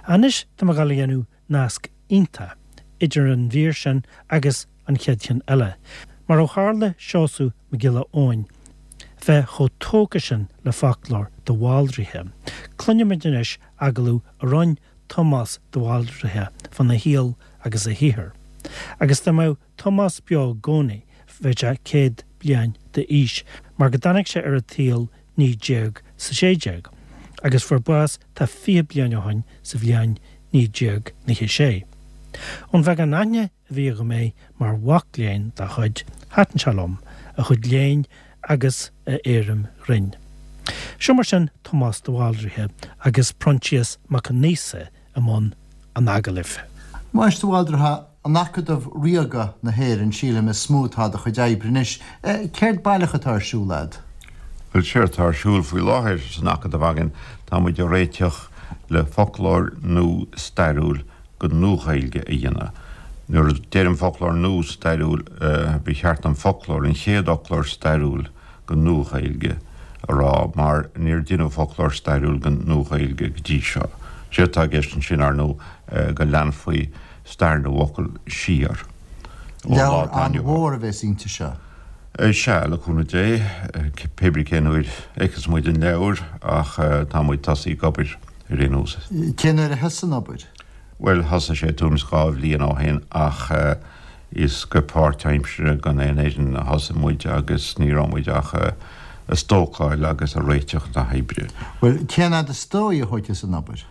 Anois tá mé ag dul a dhéanamh nasc iontach idir an mhír sin agus an chéad cheann eile, mar ó tharla Seosamh Mac Giolla Eoin bheith chomh tógtha sin le foclóir de Bhaldraithe, cluinfimid anois agallamh a rinne Tomás de Bhaldraithe fána shaol agus a shaothar. Agus dá mbeadh Tomás beo i gcónaí bheadh sé 100 bliain d'aois, mar go dtáinig sé ar an tsaol 1916, agus fuair bás tá 20 bliain ó shin sa bhliain 1996. Ón bheagán aithne a bhí agam air mar mhac léinn dá chuid, thaitin sé liom, a chuid léinn agus a éirim ghrinn. Seo mar sin Tomás de Bhaldraithe agus Proinsias Mac Aonghusa i mbun an agallaimh. Tomás de Bhaldraithe, In Acadamh Ríoga na hÉireann, sílim, is mó atá do chuid oibre anois. Céard baileach atá ar siúl a'd? Bhuel, séard atá ar siúl faoi láthair san Acadamh againn, tá muid ag réiteach le foclóir nua stairiúil den Nua-Ghaeilge a dhéanamh. Nuair a deirim foclóir nua stairiúil, ba cheart dom foclóir, an chéad fhoclóir stairiúil den Nua-Ghaeilge a rá, mar níor deineadh foclóir stairiúil den Nua-Ghaeilge go dtí seo. Séard atá i gceist ansin, ar ndóigh, go leanfaí stair na bhfocal siar ón lá Leabhar atá inniu ann. an-mhór a bheas inti seo. Sea, le cúnamh Dé, pé brí cén uair a fheicfeas muid an leabhar, ach tá muid tosaithe ag obair ar aon nós. Cén uair a thosaigh an obair? Bhuel, thosaigh sé tuairim is 2 bhliain ó shin ach is go páirtaimseartha gan aon fhoireann a thosaigh muid agus ní raibh muid ach ag stócáil agus ag réiteach na hoibre. Bhuel, cén fhad is dóigh a thógfas an obair?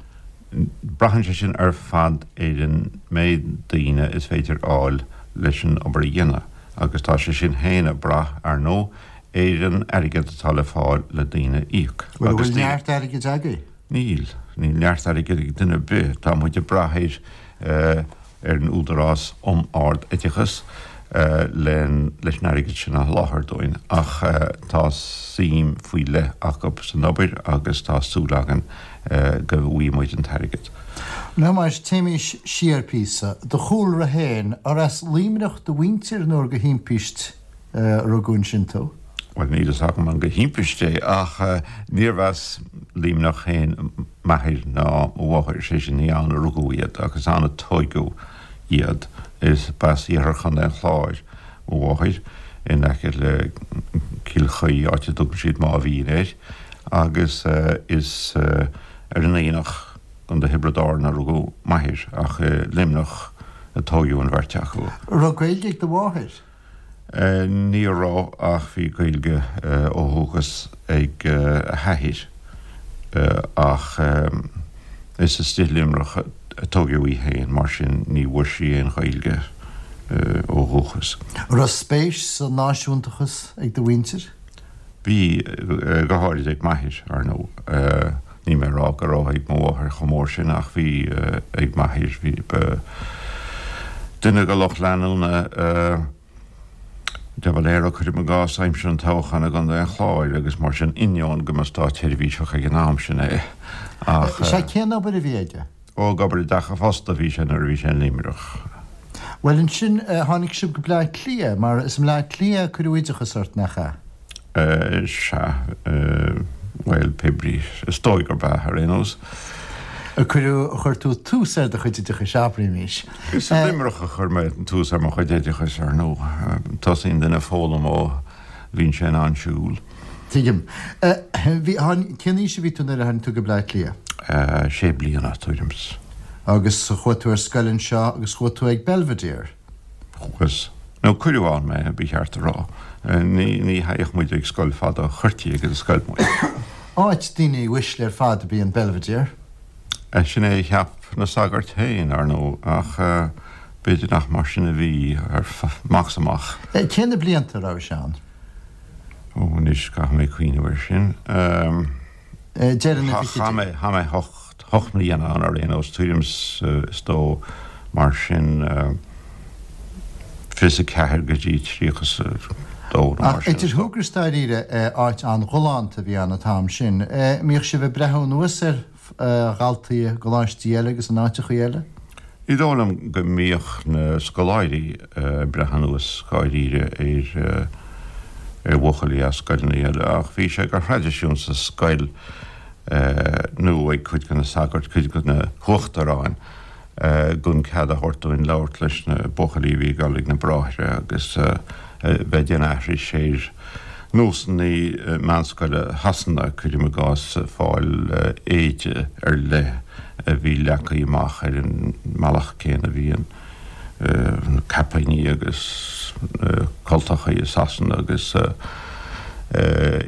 Braitheann sé sin ar fad ar an méid daoine is féidir a fháil leis an obair a dhéanamh agus tá sé sin féin ag brath, ar ndóigh, ar an airgead atá le fáil le daoine a íoc. Bhuel, an bhfuil neart airgid agaibh? Níl. Níl neart airgid ag duine ar bith. Tá muid ag brath ar. ar an Údarás um Ard-Oideachas leis an airgead sin a sholáthar dúinn ach tá suim faoi leith acu san obair agus tá súil againn go bhfaighidh muid an t-airgead. A Thomáis, téimís siar píosa. Do chúlra féin, ar as Luimneach do mhuintir nó ar de thimpist a rugadh ansin tú? Bhuel, níl fhios agam an de thimpist é ach níorbh as Luimneach féin m'athair ná mo mháthair, sé sin, ní ann a rugadh iad ach is ann a tóigeadh iad. Is b'as iarthar Chontae an Chláir mo mháthair, in aice le Cill Chaoi, áit a dtugann siad Máimh Mhín air, agus is ar an Aonach, gContae Thiobraid Árann a rugadh m'athair, ach i Luimneach a tóigeadh an bheirt acu. An raibh Gaeilge ag do mháthair? Ní raibh ach bhí Gaeilge ó dhúchas ag a hathair ach is istigh i Luimneach a tóigeadh í féin mar sin ní bhfuair sí aon Ghaeilge ó dhúchas. An raibh spéis sa náisiúntachas ag do mhuintir? Bhí, go háirid ag m'athair, ar ndóigh. Níl mé ag rá go raibh ag mo mháthair chomh mór sin ach bhí ag m'athair. Bhí, ba duine de lucht leanúna de Valera, cuirim i gcás, aimsir an toghcháin i gContae an Chláir agus mar sin, ainneoin go mba státsheirbhíseach ag an am sin é ach. Sea, cén obair a bhí aige? Ó, ag obair i dteach an phosta a bhí sé nuair a bhí sé in Luimneach. Bhuel, ansin, tháinig sibh go Bleá Cliath, mar is i mBleá Cliath a cuireadh oideachas ort, nach ea? Sea, bhuel, pé brí, is dóigh gurb ea, ar aon nós. A cuireadh, a chuir tú tús ar do chuid oideachais, abraímis. Is i Luimneach a chuir mé tús ar mo chuid oideachais, ar ndóigh. Tosaíonn duine ag foghlaim ó bhíonn sé in ann siúl. Tuigim. Bhí, tháin, cén aois a bhí tú nuair a tháinig tú go Bleá Cliath? Sé bliana, tuairim 's. Agus chuaigh tú ar scoil anseo agus chuaigh tú ag Belvedere? Chuas. Nó cuireadh ann mé, ba cheart a rá. Ní, ní théadh muid ag scoil fada, chuirtí ag an scoil muid. Áit daoine uaisle ar fad ab í an Belvedere. Sin é a cheap na sagairt féin, ar ndóigh, ach b'fhéidir nach mar sin a bhí, amach 's amach. Cé na blianta a raibh sé ann? Ó, anois, caithfidh mé cuimhneamh air sin. Deireadh na bhfichidí. Chaith mé hocht mbliana ann ar aon nós, tuairim is dó mar sin, 24 go dtí 32 nó mar sin. Ach idir thú agus dáiríre, áit an-ghalánta a bhí ann an t-am sin. Mbíodh sibh ag breathnú anuas ar dhaltaí i gcoláistí eile agus in áiteachaí eile? Ní dóigh liom go mbíodh na scoláirí ag breith anuas dháiríre ar ar bhuachaillí as scoileanna eile ach bhí sé de thraidisiún sa scoil. Nó ag cuid de na sagairt, cuid de na huachtaráin, gan cead a thabhairt dúinn labhairt leis na buachaillí a bhí ag dul ag na bráithre agus bheith ag déanamh aithris ar nósanna meánscoile Shasana, cuirim i gcás, fáil éide ar leith a bhí leagtha amach ar an mbealach céanna a bhíonn na caipíní agus na cultachaí i Sasana agus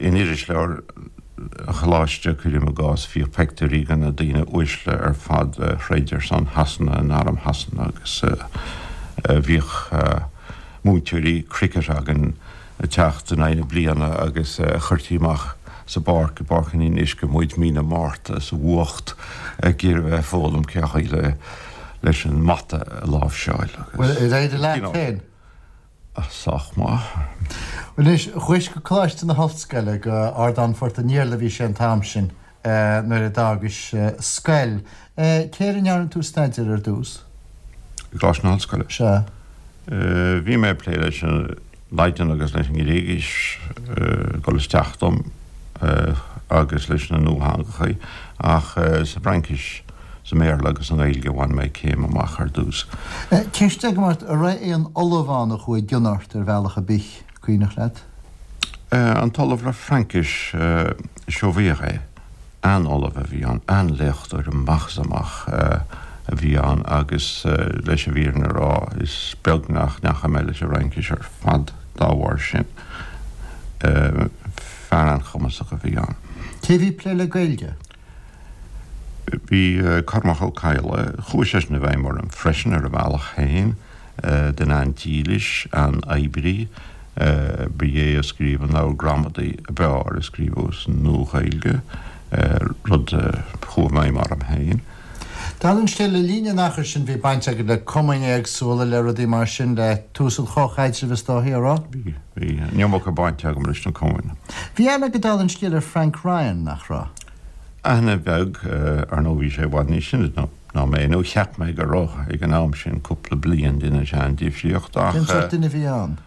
in irisleabhar an Choláiste, cuirim i gcás, bhíodh peictiúirí de na daoine uaisle ar fad a throid ar son Shasana in arm Shasana agus bhíodh múinteoirí cricket againn ag teacht in aghaidh na bliana agus chuirtí amach sa bpáirc, i bPáirc an Fhionnuisce muid mí na Márta sa bhfuacht ag iarraidh bheith ag foghlaim cén chaoi le leis an mbata a láimhseáil agus. Bhuel, ar éirigh leat féin? Sách maith. Anois, chuais go Coláiste na hOllscoile, go Ardán Phort an Iarla a bhí sé an t-am sin, nuair a d'fhágais scoil. Cé air a ndearna tú staidéar ar dtús? I gColáiste na hOllscoile? Sea. Bhí mé ag plé leis an Laidin agus leis an nGréigis ag dul isteach dom agus leis na nuatheangachaí ach sa bhFraincis, sa mBéarla agus sa nGaeilge a bhain mé céim amach ar dtús. Ceist agam ort, an raibh aon ollamh ann a chuaigh i gcion ort ar bhealach ar bith, cuimhneach leat? An t-ollamh le Fraincis, Chauviere, an-ollamh a bhí ann, an-léachtóir amach is amach a bhí ann agus leis an bhfírinne a rá, is beag nach ndeachaigh mé leis an Fhraincis ar fad dá bharr sin. Fear an-chumasach a bhí ann. Cé a bhí ag plé le Gaeilge? Bhí Cormac Ó Cadhla, chuaigh seisean i bhfeidhm orm freisin ar a bhealach féin, duine an-dílis, an-oibrí. Ba é a scríobh an leabhar gramadaí ab fhearr a scríobhadh sa Nua-Ghaeilge, rud a chuaigh i bhfeidhm orm féin. Dála an scéil, le linn an achair sin bhí baint agat le cumainn éagsúla, le rudaí mar sin, le tús an chomhchaidrimh is dóichí, an raibh? Bhí, bhí. An iomarca bainte agam leis na cumainn. Bhí aithne agat dála an scéil ar Frank Ryan, nach raibh? Aithne bheag, ar ndóigh bhí sé i bhfad níos sine ná mé, nó cheap mé go raibh ag an am sin, cúpla bliain, deineann sé an-difríocht, ach. Cén sórt duine a bhí ann?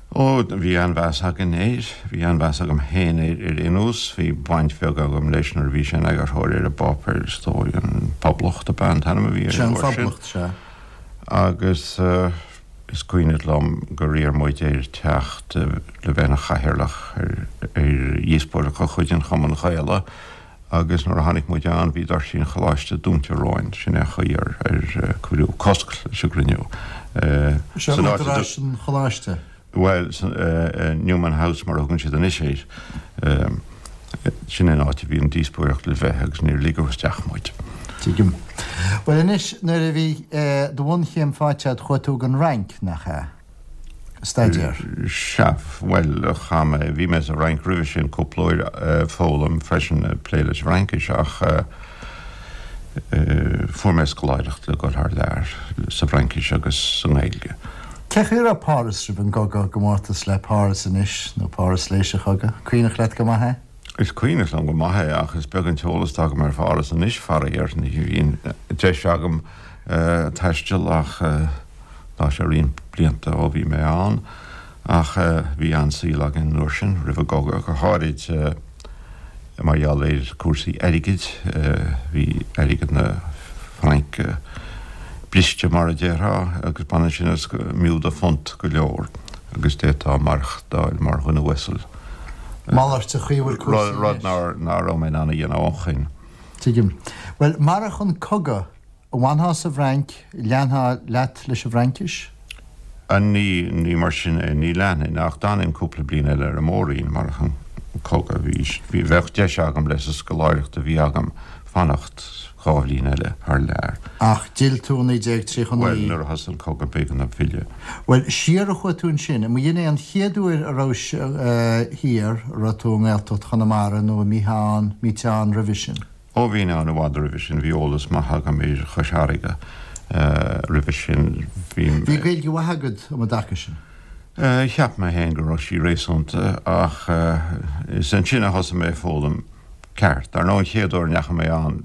Ó, bhí an-mheas againn air, bhí an-mheas agam féin air ar aon nós, bhí baint bheag agam leis nuair a bhí sé ina eagarthóir ar an bpáipéar, is dóigh, An Poblacht ab ea an t-ainm a bhí air an uair sin. Sea, An Phoblacht, sea. Agus. Is cuimhin liom gur iarr muid air teacht le bheith ina chathaoirleach ar dhíospóireacht de chuid an Chumainn Ghaelaigh agus nuair a tháinig muid ann bhí doirsí an choláiste dúnta romhainn. Sin é an chaoi ar cuireadh cosc leis an gcruinniú. Seo údaráis an choláiste? Bhuel, Newman House mar a thugann siad anois air. Sin an áit a bhí an díospóireacht le bheith agus níor ligeadh isteach muid. Tuigim. Bhuel anois, nuair a bhí do bhunchéim faighte agat chuaigh tú gon Fhrainc, nach ea? Ag staidéar. Sea, bhuel, chaith mé, bhí mé sa Fhrainc roimhe sin cúpla uair ag foghlaim freisin, ag plé leis an bhFraincis ach fuair mé scoláireacht le dul thar lear sa bhFraincis agus sa nGaeilge. Cén chaoi a raibh Páras roimh an gcogadh i gcomórtas le Páras anois, nó Páras tar éis an chogaidh? Cuimhneach leat go maith é? Is cuimhneach liom go maith é ach is beag an t-eolas atá agam ar Pháras anois, faraor. Ní bhíonn deis agam taisteal ach tá sé roinnt blianta ó bhí mé ann. Ach bhí an-saol againn an uair sin, roimh an gcogadh go háirid. Mar gheall ar chúrsaí airgid, bhí airgead na Fraince briste mar a déarfá agus b'ionann sin is go mb'fhiú do phunt go leor agus d'fhéadfá maireachtáil mar dhuine uasal. Malairt an chaoi a bhfuil cúrsaí anois. Rud ná raibh mé in ann a dhéanamh ó shoin. Tuigim. Bhuel, marach an cogadh, An bhfanfá sa bhFrainc, leanfá leat leis an bhFraincis? Ní, ní mar sin é, ní leanfainn, ach d'fhanfainn cúpla bliain eile ar an móirín, marach an cogadh. Bhí, bhí, bheadh deis agam leis an scoláireacht a bhí agam fanacht dha bhliain eile thar lear. Ach d'fhill tú i 1939. Bhuel, nuair a thosaigh an cogadh b'éigean dom filleadh. Bhuel, siar a chuaigh tú ansin. An mb'in é an chéad uair a rabhais thiar, a raibh tú i nGaeltacht Chonamara nó an mbítheá ann, mbíteá ann roimhe sin? Ó bhínn ann i bhfad roimhe sin, bhí eolas maith agam ar Chois Fharraige roimhe sin. Bhí. Bhí Gaeilge mhaith agat um an dtaca sin? Cheap mé féin go raibh sí réasúnta ach is ansin a thosaigh mé ag foghlaim ceart. Dar ndóigh an chéad uair a ndeachaigh mé ann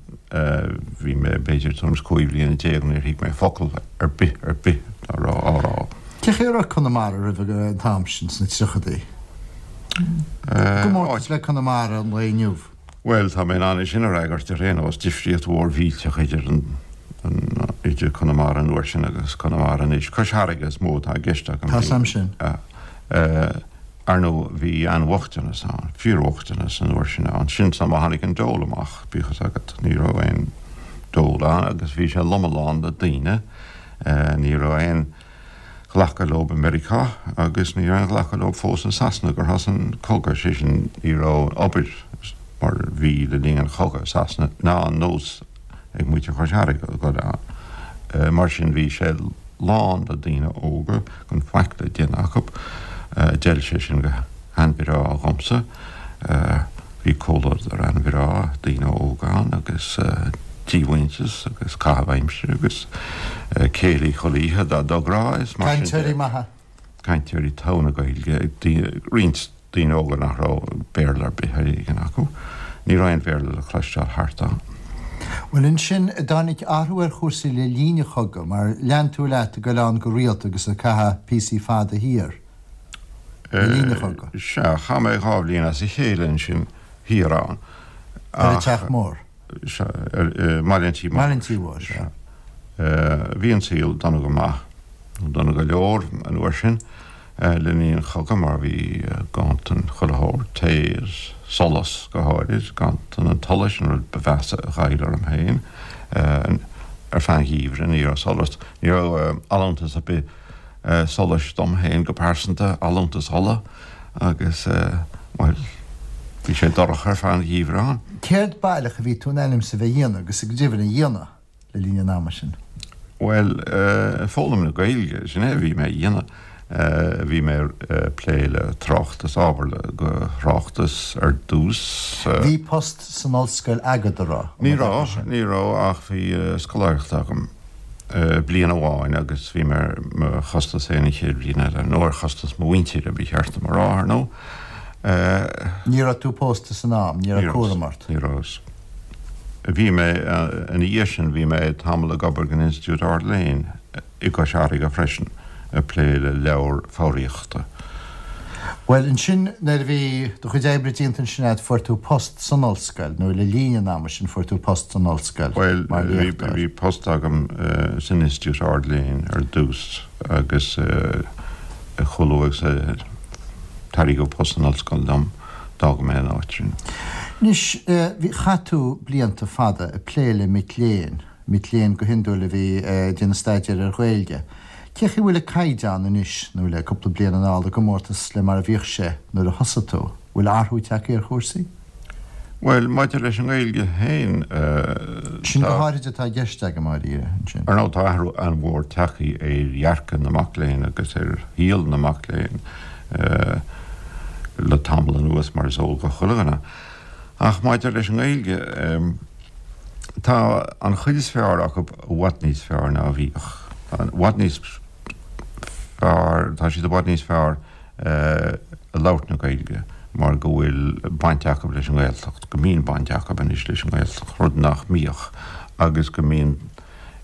bhí mé b'fhéidir tuairim is 15 bhliana, níor thuig mé focal ar bith ar bith dá raibh á rá. Cén chaoi a raibh Conamara roimh an t-am sin, sna tríochadaí? I gcomórtas le Conamara an lae inniu? Bhuel, tá mé in ann é sin a fhreagairt ar aon nós, difríocht mhór mhillteach idir an, idir Conamara an uair sin agus Conamara anois. Cois Fharraige is mó atá i gceist agam. Tá 'fhios a'm sin. Ar ndóigh, bhí an-bhochtanas ann, fíorbhochtanas an uair sin ann. Sin an am a tháinig an dole amach, bíodh fhios agat. Ní raibh aon dole ann agus bhí sé lom lán le daoine. Ní raibh aon ghlacadh leo i Meiriceá agus ní raibh aon ghlacadh leo fós i Sasana gur thosaigh an cogadh, sé sin, ní raibh obair mar bhí le linn an chogaidh i Sasana ná an nós ag muintir Chois Fharraige a dhul ann. Mar sin bhí sé lán le daoine óga gan faic le déanamh acu. D'fheil sé sin go han-bhreá dhomsa. Bhí comhluadar an-bhreá, daoine óga ann agus díomhaointeas agus caitheamh aimsire agus céilí chuile oíche dá dtográ is mar sin de. Cainteoirí maithe. Cainteoirí togha na Gaeilge, roinnt daoine óga nach raibh Béarla ar bith ar éigean acu. Ní raibh aon Bhéarla le cloisteáil thart ann. Bhuel ansin, dtáinig athrú ar chúrsaí le linn an chogaidh, mar lean tú leat ag goil ann go rialta agus ag caitheamh píosaí fada thiar le linn an chogaidh. Sea, chaith mé 2 bhliain as a chéile ansin thiar ann. Ar an Teach Mór? Sea, ar mBaile an Tí Mhóir. Baile an Tí Mhóir, sea. Bhí an saol dona go maith, dona go leor an uair sin. Le linn an chogaidh mar bhí ganntan chuile shórt, tae is solas go háirid, ganntan an tsolais an rud ba mheasa a ghoill orm féin. Ar feadh an gheimhridh ní raibh solas, ní raibh allúntas ar bith solais dom féin go pearsanta, allúntas ola agus, bhuel, bhí sé dorcha ar feadh an gheimhridh ann. Céard baileach a bhí tú in ainm is a bheith a dhéanamh agus go deimhin a dhéanamh? le linn an ama sin? Bhuel, foghlaim na Gaeilge, sin é a bhí mé a dhéanamh. Bhí mé ag plé le tráchtas, ábhar do thráchtas ar dtús. Bhí post san ollscoil agat, an raibh? Ní raibh, ní raibh ach bhí scoláireacht agam bliain amháin agus bhí mé ar mo chostas féin an chéad bhliain eile, nó ar chostas mo mhuintire, ba cheart dom a rá, ar ndóigh. Ní raibh tú pósta san am, ní raibh cúram ort? Ní raibh. Bhí mé, ina dhiaidh sin, bhí mé tamall ag obair don Institiúid Ard-Léinn i gCois Fharraige freisin, ag plé le leabhair foghraíochta. Bhuel, ansin, nuair a bhí do chuid oibre déanta ansin agat, fuair tú post san ollscoil, nó le linn an ama sin fuair tú post san ollscoil mar léachtóir. Bhuel, bhí post agam san Institiúid Ard-Léinn ar dtús agus chomh luath agus a tairgeadh post san ollscoil dom, D'fhág mé an áit sin. Anois, bhí, chaith tú blianta fada ag plé le mic léinn, mic léinn go hiondúil a bhí ag déanamh staidéir ar Ghaeilge. Cé chaoi a bhfuil an caighdeán anois, nó le cúpla bliain anall, i gcomórtas le mar a bhíodh sé nuair a thosaigh tú? Bhfuil athrú tagtha ar chúrsaí? Bhuel, maidir leis an nGaeilge féin, Sin go háirid atá i gceist agam, dháiríre, ansin. Ar ndóigh, tá athrú an-mhór tagtha ar dhearcadh na mac léinn agus ar shaol na mac léinn le tamall anuas, mar is eol do chuile dhuine. Ach maidir leis an nGaeilge, tá an chuid is fearr acu i bhfad níos fearr ná a bhíodh. I bhfad níos fearr, tá siad i bhfad níos fearr ag labhairt na Gaeilge mar go bhfuil baint acu leis an nGaeltacht, go mbíonn baint acu anois leis an nGaeltacht, rud nach mbíodh, agus go mbíonn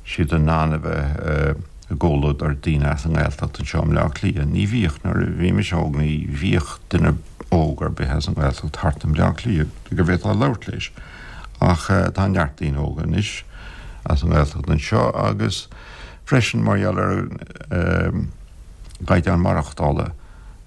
siad in ann a bheith i gcomhluadar daoine as an nGaeltacht anseo i mBleá Cliath. Ní bhíodh, nuair a bhí mise óg, ní bhíodh duine óg ar bith as an nGaeltacht thart i mBleá Cliath go bhféadfá labhairt leis. Ach tá neart daoine óga anois as an nGaeltacht anseo agus freisin mar gheall ar an gcaighdeán maireachtála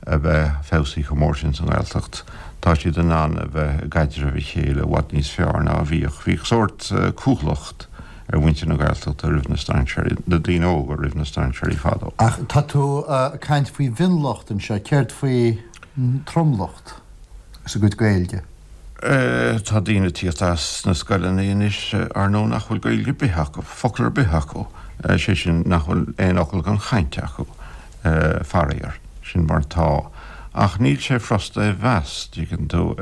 a bheith feabhsaithe chomh mór sin sa nGaeltacht, tá siad in ann a bheith i gcaidreamh a chéile i bhfad níos fearr ná a bhíodh. Bhíodh sórt cúthaileacht ar mhuintir na Gaeltachta roimh na strainséirí, na daoine óga roimh na strainséirí fadó. Ach tá tú ag caint faoi mhionlucht anseo, céard faoi tromlucht agus a gcuid Gaeilge? Tá daoine ag tíocht as na scoileanna anois, ar ndóigh, nach bhfuil Gaeilge ar bith acu, focal ar bith acu, sé sin, nach bhfuil aon fhocal den chaint acu, faraor. Sin mar atá. Ach níl sé furasta é a mheas, dtuigeann tú.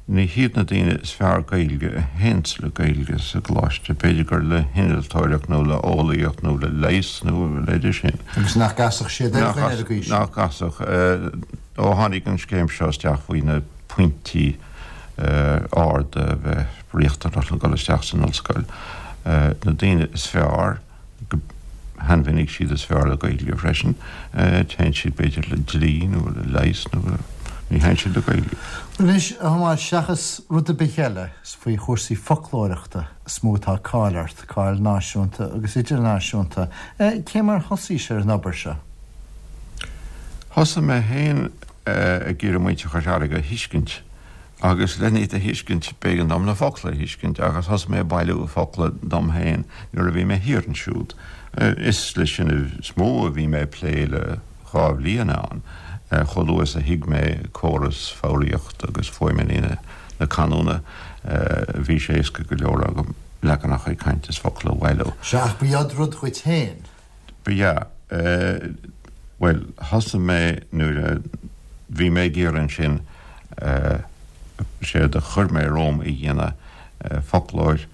Ní hiad na daoine is fearr Gaeilge a théanns le Gaeilge sa gcoláiste, b'fhéidir gur le hinnealtóireacht nó le eolaíocht nó le leigheas nó a leithéid sin. Agus nach gcasfadh siad ar dhuine ar an gcaoi sin? Nach gcasfadh. Ó tháinig an scéim seo isteach faoi na pointí arda a bheith riachtanach le dul isteach san ollscoil. Na daoine is fearr, go han-mhinic siad is fearr le Gaeilge freisin, téann siad b'fhéidir le dlí nó le leigheas nó. Ní thaitníonn sé le Gaeilge. Anois, a Thomáis, seachas rud ar bith eile, is faoi chúrsaí foclóireachta is mó atá cáil ort, cáil náisiúnta agus idirnáisiúnta. Cé mar thosaís ar an obair seo? Thosaigh mé féin ag iarraidh muintir Chois Fharraige a thuiscint agus len iad a thuiscint b'éigean dom na focla a thuiscint agus thosaigh mé ag bailiú focla dom féin nuair a bhí mé thiar ansiúd. Is leis sin is mó a bhí mé ag plé le 2 bhliain ann. Chomh luath is a thuig mé córas foghraíochta agus fuaimeanna na canúna bhí sé éasca go leor agam leaganacha cainte is focla a bhailiú. Sea, ach ba rud dhuit féin. Ba ea. Bhuel, thosaigh mé nuair a bhí mé ag iarraidh ansin, séard a chuir mé romham a dhéanamh, foclóir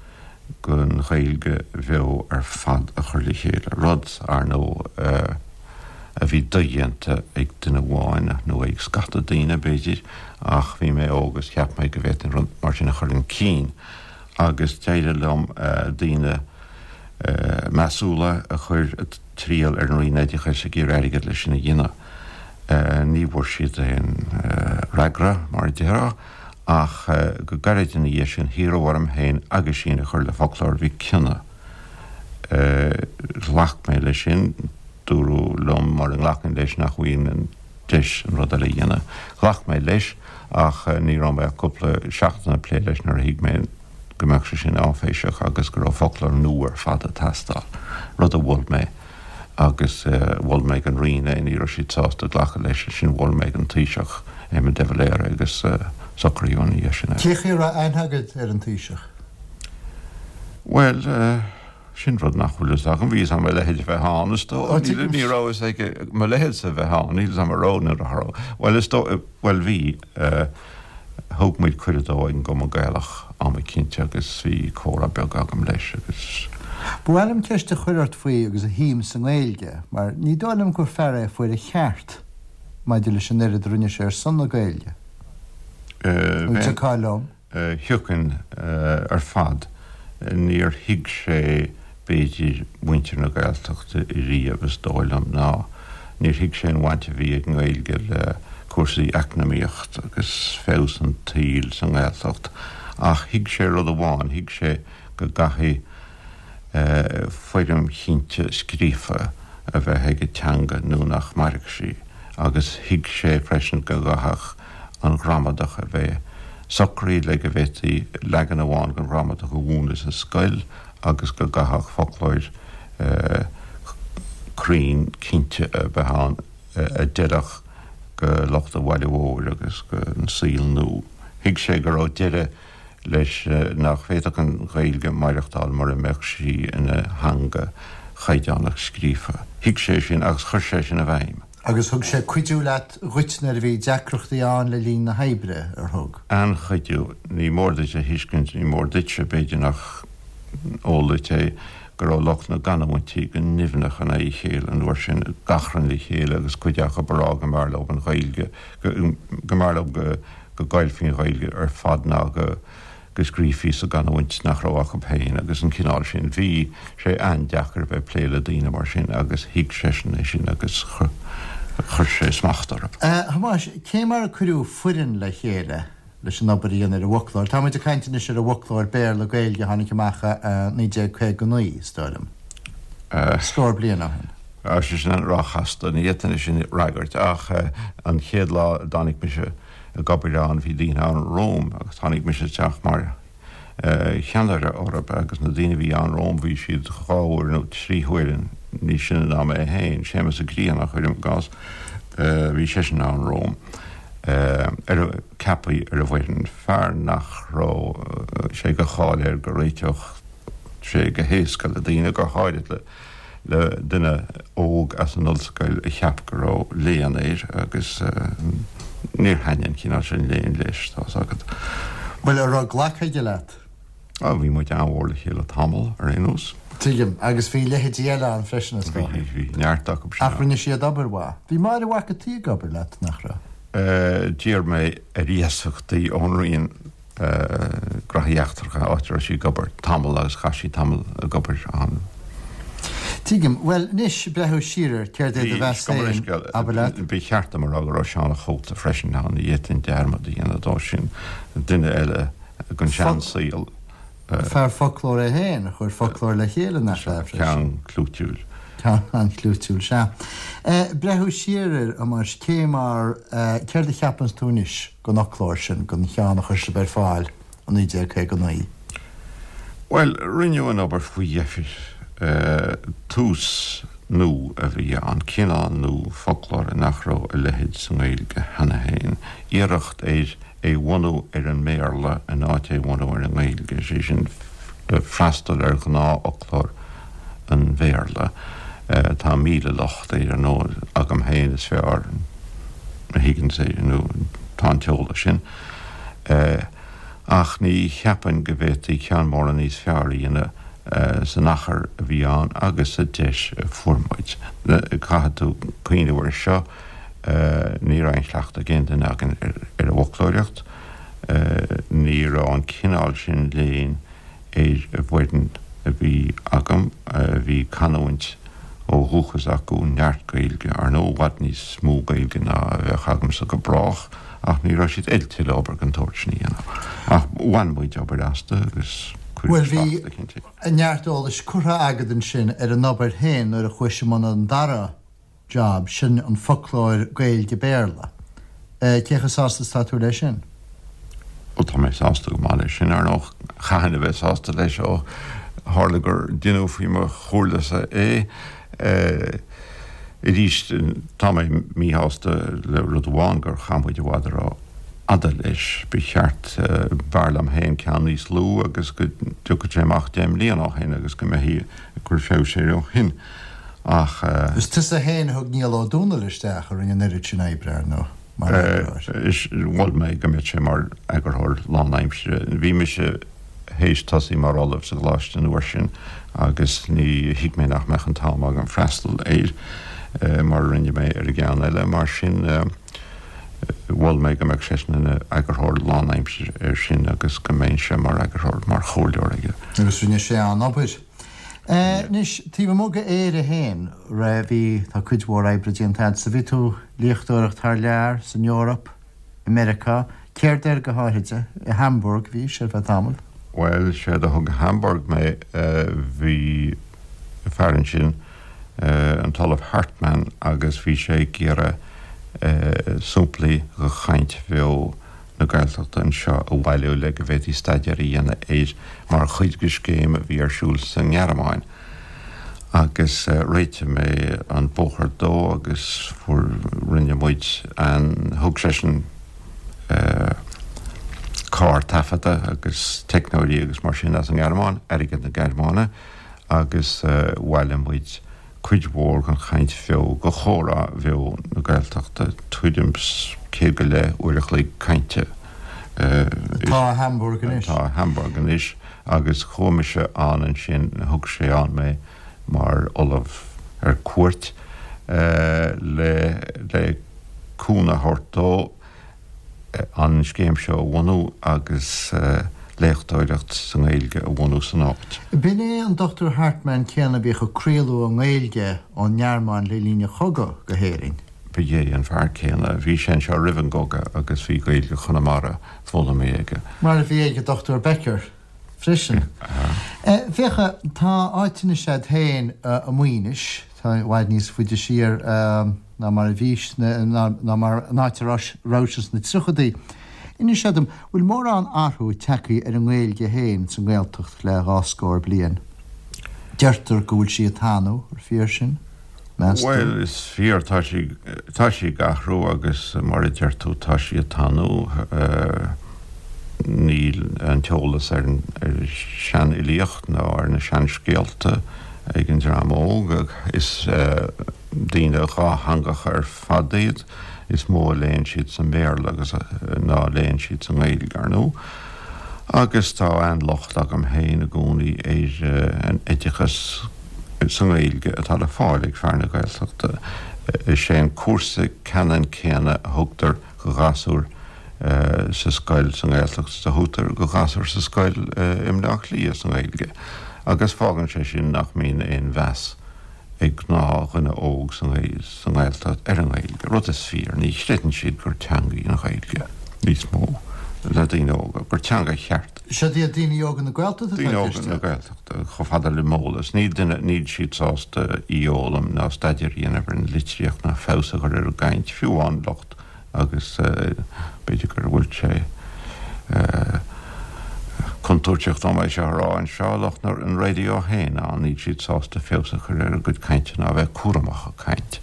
den Ghaeilge bheo ar fad a chur le chéile, rud, ar ndóigh, a bhí dodhéanta ag duine amháin, nó ag scata daoine, b'fhéidir, ach bhí mé óg agus cheap mé go bhféadfainn rud mar sin a chur chun cinn agus d'éirigh liom daoine measúla a chuir triall ar an Roinn Oideachais ag iarraidh airgead leis sin a dhéanamh. Ní bhfuair siad aon fhreagra, mar a déarfá, ach go gairid ina dhiaidh sin hiarradh orm féin aguisín a chur le Foclóir Mhic Cionnaith. Ghlac mé leis sin, dúradh liom mura nglacfainn leis nach bhfaighinn an deis an rud eile a dhéanamh. Ghlac mé leis ach ní raibh mé ach cúpla seachtain ag plé leis nuair a thuig mé go mbeadh sé sin áiféiseach agus go raibh foclóir nua ar fad ag teastáil, rud a mhol mé agus mhol mé don Roinn é, ní raibh siad sásta glacadh leis, ansin mhol mé don Taoiseach, Éamon de Valera agus socraíodh ina dhiaidh sin é. Cé chaoi a raibh aithne agat ar an Taoiseach? Bhuel, Sin rud nach bhfuil fhios agam. Bhí fhios agam a leithéid a bheith ann, is dóigh. Ní raibh fhios aige mo leithéidse a bheith ann. Níl fhios agam an raibh nó nach raibh. Bhuel, is dóigh, bhuel, bhí. Thug muid cuireadh dó ag an gCumann Gaelach am eicínt agus bhí comhrá beag agam leis agus. Ba mhaith liom ceist a chur ort faoi agus a shuim sa nGaeilge, mar ní dóigh liom gur fear é a fuair a cheart maidir leis an oiread a rinne sé ar son na Gaeilge. An dtiocfá liom? Thiocfainn ar fad. Níor thuig sé, b'fhéidir, muintir na Gaeltachta riamh, is dóigh liom, ná níor thuig sé an bhaint a bhí ag an nGaeilge le cúrsaí eacnamaíochta agus feabhas an tsaoil sa nGaeltacht. Ach thuig sé rud amháin, thuig sé go gcaithfidh foirm chinnte scríofa a bheith ag an teanga nó nach mairfeadh sí, agus thuig sé freisin go gcaithfeadh an ghramadach a bheith socraithe le go bhféadfaí leagan amháin den ghramadach a mhúineadh sa scoil agus go gcaithfeadh foclóir cruinn cinnte a bheith ann a d'fheilfeadh go lucht an bhaile mhóir agus don saol nua. Thuig sé go raibh deireadh leis nach bhféadfadh an Ghaeilge maireachtáil mura mbeadh sí ina theanga chaighdeánach scríofa. Thuig sé sin agus chuir sé sin i bhfeidhm. Agus thug sé cuidiú leat, dhuit nuair a bhí deacrachtaí ann le linn na hoibre, ar thug? An-chuidiú. Ní mór duit a thuiscint, ní mór duitse, b'fhéidir nach eol duit é, go raibh lucht na gcanúintí go nimhneach in aghaidh a chéile an uair sin, ag achrann le chéile agus cuid acu ag rá go mb'fhearr leo an Ghaeilge, go mb'fhearr leo go go gcaillfí an Ghaeilge ar fad ná go go scríofaí sa gcanúint nach raibh acu féin agus an cineál sin. Bhí sé an-deacair a bheith ag plé le daoine mar sin agus thuig seisean é sin agus chuir sé smacht orthu. A Thomáis, cé mar a cuireadh foireann le chéile leis an obair a dhéanamh ar an bhfoclóir? Táimid ag caint anois ar an bhfoclóir Béarla-Gaeilge a tháinig amach i 1959, is dóigh liom. Scór bliain ó shin. Tá sé sin an-róchasta, ní fhéadfainn é sin a fhreagairt ach an chéad lá a dtáinig mise ag obair ann, bhí daoine ann romham agus tháinig mise isteach mar cheannaire orthu agus na daoine a bhí ann romham bhí siad dhá uair nó trí huaire níos sine ná mé féin, Séamus Ó Grianna, cuirim i gcás, bhí seisean ann romham, ar a, ceaptha ar an bhfoireann, fear nach raibh sé de cháil air go réiteodh sé go héasca le daoine, go háirid le. le duine óg as an ollscoil a cheap go raibh léann air agus níor thaitnigh an cineál sin léinn leis, tá's agat. Bhuel, an raibh glactha aige leat? Á, bhí muid an-mhór le chéile tamall, ar aon nós. Tuigim. Agus bhí leithéidí eile ann freisin, is dócha. Bhí, bhí neart acu sin ann. Ach rinne siad obair mhaith. Bhí Máire Mhac an tSaoi ag obair leat, nach raibh? D'iarr mé ar iasacht í ón Roinn. Gnóthaí Eachtracha, áit a raibh sí ag obair tamall agus chaith sí tamall ag obair ann. Tuigim. Bhuel, anois, breathnú siar air, céard é do mheas féin, abair leat? Ba cheart dom a rá go raibh Seán a' Chóta freisin ann, ní fhéadfainn dearmad a dhéanamh dó sin, duine eile den seansaol. Fear foclóir é féin, a chuir foclóir le chéile, nach ea, freisin? Ceann clúitiúil. Ceann an-chlúitiúil, sea. Breathnú siar air, a Thomáis, cé mar, céard a cheapanns tú anois den fhoclóir sin, den cheann a chuir sibh ar fáil? 1959. Bhuel, rinneadh an obair faoi dheifir. Tús nua a bhí ann, cineál nua foclóra nach raibh a leithéid sa nGaeilge cheana féin. Iarracht ar é bhunú ar an mBéarla in áit é bhunú ar an nGaeilge, sé sin freastal ar ghnáthfhoclóir an Bhéarla. Tá 1000 locht air, ar ndóigh, agam féin is fearr a thuigeanns é, nó tá an t-eolas sin. Ach ní cheapfainn go bhféadfaí ceann mórán níos fearr a dhéanamh san achar a bhí ann agus sa deis a fuair muid. Caithfidh tú cuimhneamh air seo, ní raibh aon chleachtadh ag aon duine againn ar an bhfoclóireacht, ní raibh an cineál sin léinn ar an bhfoireann a bhí agam. Bhí canúint ó dhúchas acu, neart Gaeilge, ar ndóigh, i bhfad níos mó Gaeilge ná a bheadh agamsa go brách, ach ní raibh siad oilte le obair den tsórt sin a dhéanamh. Ach bhain muid obair astu agus cuireadh Bhuel, bhí slacht eicínt. neart eolais curtha agat ansin ar an obair féin nuair a chuais i mbun an dara job, sin an foclóir Gaeilge-Béarla. Cé chomh sásta is atá tú leis sin? Bhuel, tá mé sásta go maith leis sin. Ar ndóigh, chaithfinn a bheith sásta leis ó tharla gur deineadh faoi mo chomhairlesa é. Arís, tá mé míshásta le rud amháin, gur chaith muid i bhfad ró-fhada leis. Ba cheart, b'fhearr liom féin ceann níos lú agus go dtiocfadh sé amach 10 mbliana ó shin agus go mbeifí ag cur feabhais air ó shin. Ach. Is tusa féin a thug Niall Ó Dónaill isteach, a rinne an oiread sin oibre, ar ndóigh, mar eagarthóir. Mhol mé go mbeadh sé mar eagarthóir lánaimsire. Bhí mise théis tosaí mar ollamh sa gcoláiste an uair sin agus ní thuig mé nach mbeadh an t-am agam freastal air mar a rinne mé ar an gceann eile. Mar sin, mhol mé go mbeadh seisean ina eagarthóir lánaimsire air sin agus go mbeinnse mar eagarthóir, mar chomhairleoir aige. Agus rinne sé an-obair. Anois, taobh amuigh de Éire féin, raibh, bhí, tá cuid mhór oibre déanta agatsa. Bhí tú ag léachtóireacht thar lear, san Eoraip, i Meiriceá. Céard air go háithrid? I Hamburg bhís ar feadh tamaill. Bhuel, séard a thug go Hamburg mé, bhí fear ansin, an tOllamh Hartmann, agus bhí sé ag iarraidh samplaí de chaint bheo na Gaeltachta anseo a bhailiú le go bhféadfaí staidéar a dhéanamh air mar chuid de scéim a bhí ar siúl sa nGearmáin agus réitigh mé an bóthar dó agus fuair, rinne muid an, thug seisean carr taifeadta agus teicneoirí agus mar sin as an nGearmáin, airgead na Gearmáine agus bhailigh muid cuid mhór den chaint bheo, de chomhrá bheo na Gaeltachta, tuairim 's 100 go leith uair a chloig cainte. Atá i Hamburg anois. Atá i Hamburg anois agus chuaigh mise ann ansin, thug sé ann mé mar ollamh ar cuairt le le cúnamh a thabhairt dó. an scéim seo a bhunú agus léachtóireacht sa nGaeilge a bhunú san áit. B'in é an Dr Hartmann céanna a bhíodh ag craoladh i nGaeilge ón nGearmáin le linn an chogaidh go hÉirinn. Ba é an fear céanna. Bhí sé anseo roimh an gcogadh agus bhí Gaeilge Chonamara foghlamtha aige. Mar a bhí ag an Dr Becker freisin. Féach, tá áit anois a'd féin i Maínis, tá i bhfad níos faide siar ná mar a bhís, ná mar an áit a rabhais sna tríochadaí. Inis dom, bhfuil mórán athrú tagtha ar an nGaeilge féin sa nGaeltacht le dhá scór bliain? Deirtear go bhfuil sí ag tanú, ar fíor sin, meas tú? Bhuel, is fíor, tá sí, tá sí ag athrú agus mar a deir tú, tá sí ag tanú. Níl an t-eolas ar an seanfhilíocht ná ar na seanscéalta ag an dream óg. Is daoine dhátheangacha ar fad iad. Is mó a léann siad sa mBéarla agus ná a léann siad sa nGaeilge, ar ndóigh. Agus tá an-locht agam féin i gcónaí ar an oideachas sa nGaeilge atá le fáil ag fear na Gaeltachta. Is é an cúrsa ceannann céanna a thugtar do ghasúir sa scoil sa nGaeltacht is a thugtar do ghasúir sa scoil i mBleá Cliath sa nGaeilge agus fágann sé sin nach mbíonn aon mheas. ag gnáthdhuine óg sa nGaeltacht ar an nGaeilge, rud is fíor, ní chreideann siad gur teanga í an Ghaeilge níos mó le daoine óga, gur teanga cheart. Siad iad daoine óga na Gaeltachta atá i Daoine óga na Gaeltachta, chomh fada le m'eolas. Níl duine, níl siad sásta í a fhoghlaim ná staidéar a dhéanamh ar an litríocht ná feabhas a chur ar a gcaint, fiú amháin lucht agus b'fhéidir go bhfuil sé contúirteach dom é seo a rá anseo, lucht an raidió féin ann, níl siad sásta feabhas a chur ar a gcuid cainte ná a bheith cúramach ag caint.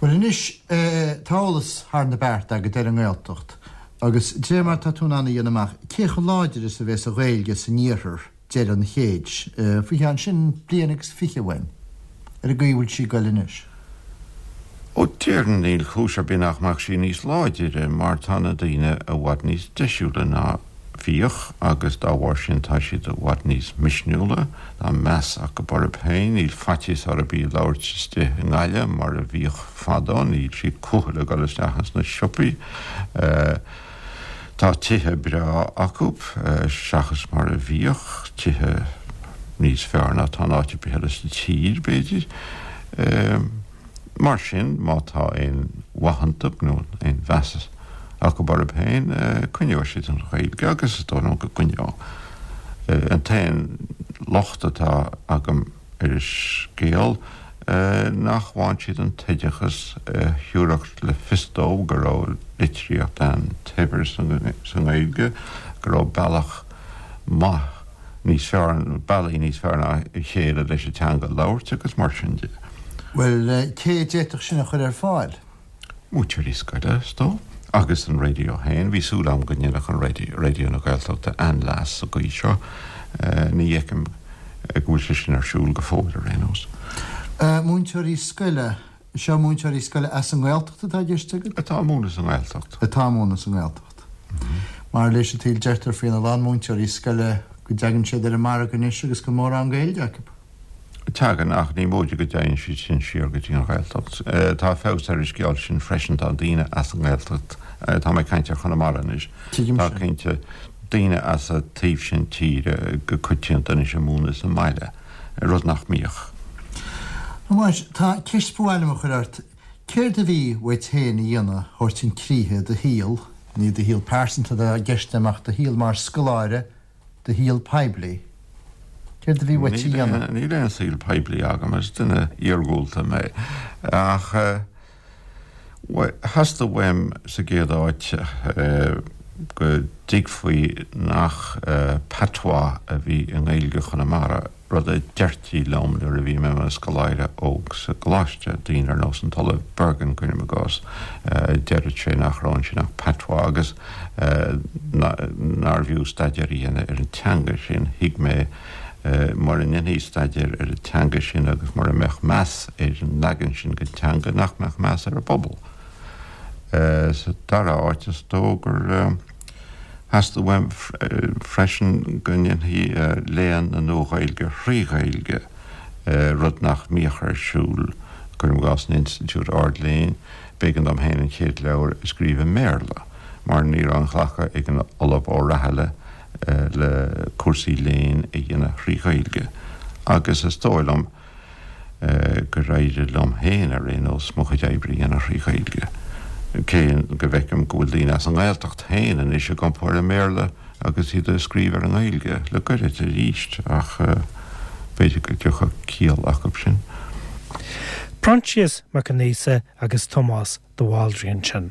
Bhuel anois, tá eolas thar na bearta agat ar an nGaeltacht agus de réir mar atá tú in ann a dhéanamh amach, cé chomh láidir is a bheas an Ghaeilge san iarthar deireadh an chéid, faoi cheann sin bliain agus fiche uainn, ar an gcaoi a bhfuil sí ag goil anois? Ó, déarfainn níl cúis ar bith nach mbeadh sí níos láidire mar tá na daoine i bhfad níos deisiúla ná bhíodh agus dá bharr sin tá siad i bhfad níos misniúla, tá meas acu orthu féin, níl faitíos orthu í a labhairt istigh i nGaillimh mar a bhíodh fadó, níl siad cúthail ag dul isteach ins na siopaí. Tá tithe breá acu, seachas mar a bhíodh, tithe níos fearr ná atá in áit ar bith eile sa tír, b'fhéidir. Mar sin, má tá aon mhaith iontu, nó aon mheas acu orthu féin, coinneoidh siad an Ghaeilge, agus is dóigh liom go gcoinneoidh. An t-aon locht atá agam ar an scéal, nach bhfaigheann siad an t-oideachas a thabharfadh le fios dóibh go raibh litríocht an-shaibhir sa nGaeilge, go raibh bealach maith níos fearr, bealaí níos fearr ná a chéile leis an teanga a labhairt agus mar sin de. Bhuel, cé a d'fhéadfadh sin a chur ar fáil? Múinteoirí scoile, is dóigh, agus an raidió féin. Bhí súil agam go ndéanfadh an raidió, Raidió na Gaeltachta, an-leas sa gcaoi seo. Ní fheicim go bhfuil sé sin ar siúl go fóill, ar aon nós. Múinteoirí scoile, seo múinteoirí scoile as an nGaeltacht atá i gceist agat? Atá ag múineadh sa nGaeltacht. Atá ag múineadh sa nGaeltacht. Mar leis an tsaol deirtear faoina lán múinteoirí scoile go dtagann siad ar an margadh anois agus gan mórán Gaeilge acu. Tagann, ach ní móide go dtéann siad sin siar go dtí an Ghaeltacht. Tá feabhas ar an scéal sin freisin, tá daoine as an nGaeltacht, tá mé ag caint ar Chonamara anois, tá cinnte daoine as an taobh sin tíre go coitianta anois ag múineadh sa mbaile, rud nach mbíodh. A Thomáis, tá ceist ba mhaith liom a chur ort. Céard a bhí uait féin a dhéanamh a thabhairt chun críche i do shaol, ní do shaol pearsanta atá i gceist agam ach do shaol mar scoláire, do shaol poiblí? Céard a bhí uait a dhéanamh? Níl aon saol poiblí agam, is duine iargúlta mé. Ach theastaigh uaim sa gcéad áit go dtuigfí nach patois a bhí i nGaeilge Chonamara. rud a deirtí liom nuair a bhí mé i mo scoláire óg sa gcoláiste, daoine ar nós an tOllamh Bergin, cuirim i gcás, deireadh sé nach raibh ansin ach patois agus nárbh fhiú staidéar a dhéanamh ar an teanga sin. Thuig mé mura ndéanfaí staidéar ar an teanga sin agus mura mbeadh meas ar an leagan sin den teanga nach mbeadh meas ar an bpobal. Sa dara háit, is dóigh gur. Theastaigh uaim freisin go ndéanfaí léann na Nua-Ghaeilge thrí Ghaeilge, rud nach mbíodh ar siúl, cuirim i gcás, in institiúid ard-léinn. B'éigean dom féin an chéad leabhar a scríobh i mBéarla, mar ní raibh aon ghlacadh ag an Ollamh Ó Rathaille le cúrsaí léinn a dhéanamh thrí Ghaeilge. Agus is dóigh liom, gur éirigh liom féin, ar aon nós, mo chuid oibre a dhéanamh thrí Ghaeilge, cé go bhfeicim go bhfuil daoine as an nGaeltacht féin anois ag iompú ar an mBéarla agus iad ag scríobh ar an nGaeilge le goirid arís, ach b'fhéidir go dtiocfadh ciall acu sin. Proinsias Mac Aonghusa agus Tomás de Bhaldraithe ansin.